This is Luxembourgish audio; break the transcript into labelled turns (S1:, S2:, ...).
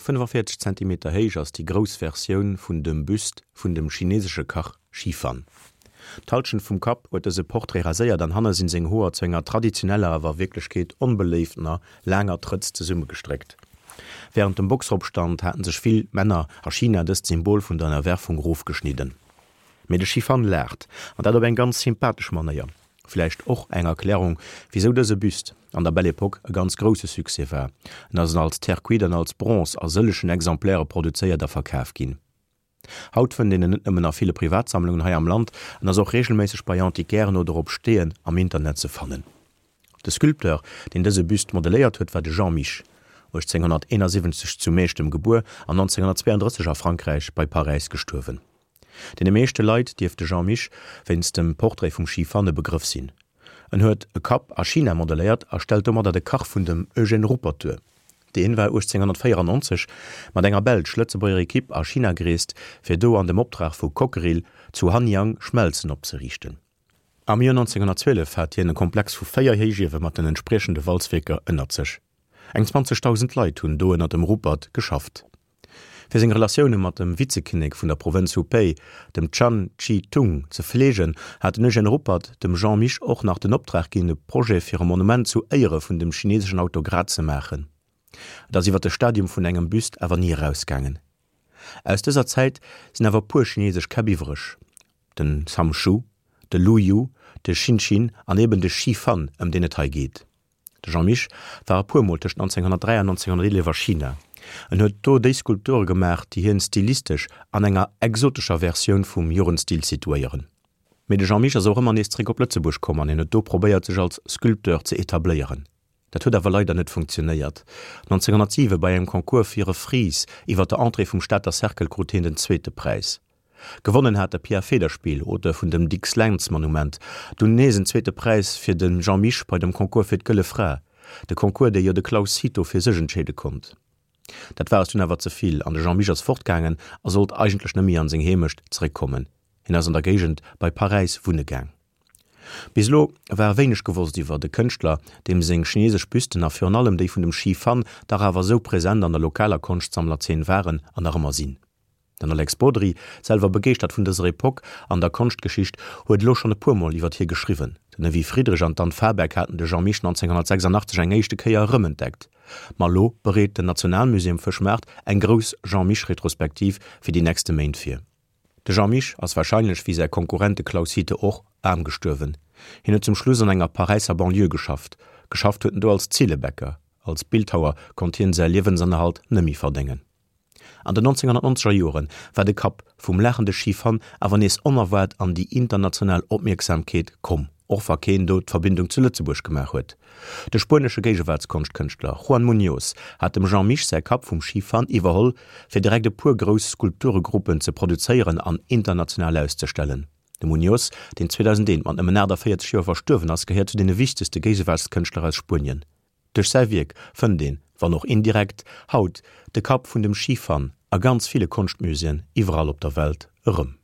S1: Eng 45 Zentimeter héich ass déi grouss Versioun vun dem Büst vun dem chinesesche Kach Shi Fan. D'Hallschent vum Kapp huet dëse Portrait raséiert an hanne sinn seng Hoer zu enger traditioneller, awer a Wierklechkeet onbeléiftener, laanger Trëtz zesummegestréckt. Wärend dem Boxeropstand haten sech vill Männer a China dëst Symbol vun der Ënnerwerfung rofgeschnidden. Mee de Shi Fan laacht, an dat op eng ganz sympathesch Manéier. Vläicht och eng Erklärung, wisou dëse Büst an der Belle Epoque e ganz grousse Succès war. En ass als Terre cuite an als Bronze a sëllegen Exemplaire produzéiert a verkaf ginn. Haut fënnt een en net nëmmen a ville Privatsammlungen hei am Land, en ass och reegelméisseg bei Antiquairen oder op Steeën am Internet ze fannen. De Sculpteur, deen dëse Büst modelléiert huet, war de Jean Mich, 1871 zu Meechtem gebuer an 1932 a Frankräich bei Paräis gestuerwen. Deene meeschte Leit dierft de Jean Mich wéinst dem Portrait vum Shi Fan e Begrëff sinn. En huet e Kapp a China modelléiert a stellt domadder de Kach vun dem Eugène Ruppert duer. Deen war 1894 mat enger belsch-lëtzebuerger Ekipp a China gereest, fir do an dem Optrag vu Cockerill zu Hanyang Schmelzen opzeriichten. Am Joer 1912 hat hien e Komplex vu 4 Héichiewe mat den entspriechende Walzwierker ënnert sech. Eng 20.000 Leit hunn do ënner dem Ruppert geschafft. Fir seng Relatioune mat dem Vizekinnek vun der Provënz Hubei, dem Chan Chi-tung, ze fleegen, hat den Eugène Ruppert dem Jean Mich och nach den Optrag ginn, e Projet fir e Monument zu Éiere vun dem chineseschen Autokrat ze maachen. Et ass iwwer de Stadium vun engem Büst awer ni erausgaangen. Aus dëser Zäit sinn awer e puer chinesesch Käpp iwwreg, den Sam Shu, de Lu Yu, de Xin Xin an eben de Shi Fan, ëm deen et hei geet. De Jean Mich war e puer Mol tëscht 1903 an 1911 a China. En huet do déi Skulpture gemaach, déi hien stilistesch an enger exotescher Versioun vum Jugendstil situéieren. Mee de Jean Mich ass och ëmmer nees zeréck op Lëtzebuerg komm an hien huet do probéiert, sech als Sculpteur ze etabléieren. Dat huet awer leider net funktionéiert. 1907 bei engem Concours fir e Fries iwwer der Entrée vum Stater Cercle krut hien den zweete Präis. Gewonnen hat de Pierre Federspiel, Auteur vun dem Dicks-Lentz-Monument, dunn nees en zweete Präis fir de Jean Mich bei dem Concours fir d'Gëlle Fra, de Concours, dee jo de Claus Cito fir sech entscheede konnt. Dat war es dunn awer ze vill an de Jean Mich ass fortgaangen a sollt eigentlech net méi an seng Heemecht zeréckkommen. Hien ass an der Géigend bei Paräis wunne gaang. Bis elo war wéineg gewosst iwwer de Kënschtler, deem seng chinesesch Büsten a virun allem déi vun dem Shi Fan dach awer esou present an der lokaler Konschtsammlerzeen waren an nach ëmmer sinn. Den Alex Bodry, selwer begeeschtert vun dëser Epoque an der Konschtgeschicht, huet elo schonn e puer Mol iwwer hie geschriwwen. Den Evy Friedrich an d'Anne Fahrberg haten de Jean Mich 1986 eng éischte Kéier erëmentdeckt. Ma elo bereet den Nationalmusée um Fëschmaart eng grouss Jean Mich-Retrospektiv fir déi nächste Méint vir. De Jean Mich ass warscheinlech, wéi säi Konkurrent de Claus Hite och, aarm gestuerwen. Hien huet zum Schluss an enger Paräisser Banlieue geschafft. Geschafft huet en do als Zillebäcker. Als Bildhauer konnt hien säi Liewensennerhalt nëmmi verdéngen. An den 1990er Joren war de Kapp vum laachende Shi Fan awer nees onerwaart an déi international Opmierksamkeet komm, och wa keen do d'Verbindung zu Lëtzebuerg gemaach huet. De spuenesche Géigewaartskonscht-Kënschtler Juan Muñoz hat dem Jean Mich säi Kapp vum Shi Fan iwwerholl, fir direkt e puer grouss Skulpturegruppen ze produzéieren an international auszestellen. De Muñoz, deen 2001 mat nëmmen 48 Joer verstuerwen ass, gehéiert zu deene wichtegste Géigewaartskënschtler aus Spuenien. Duerch säi Wierk fënnt een, wann och indirekt, haut de Kapp vun dem Shi Fan a ganz ville Konschtmuséeën iwwerall op der Welt erëm.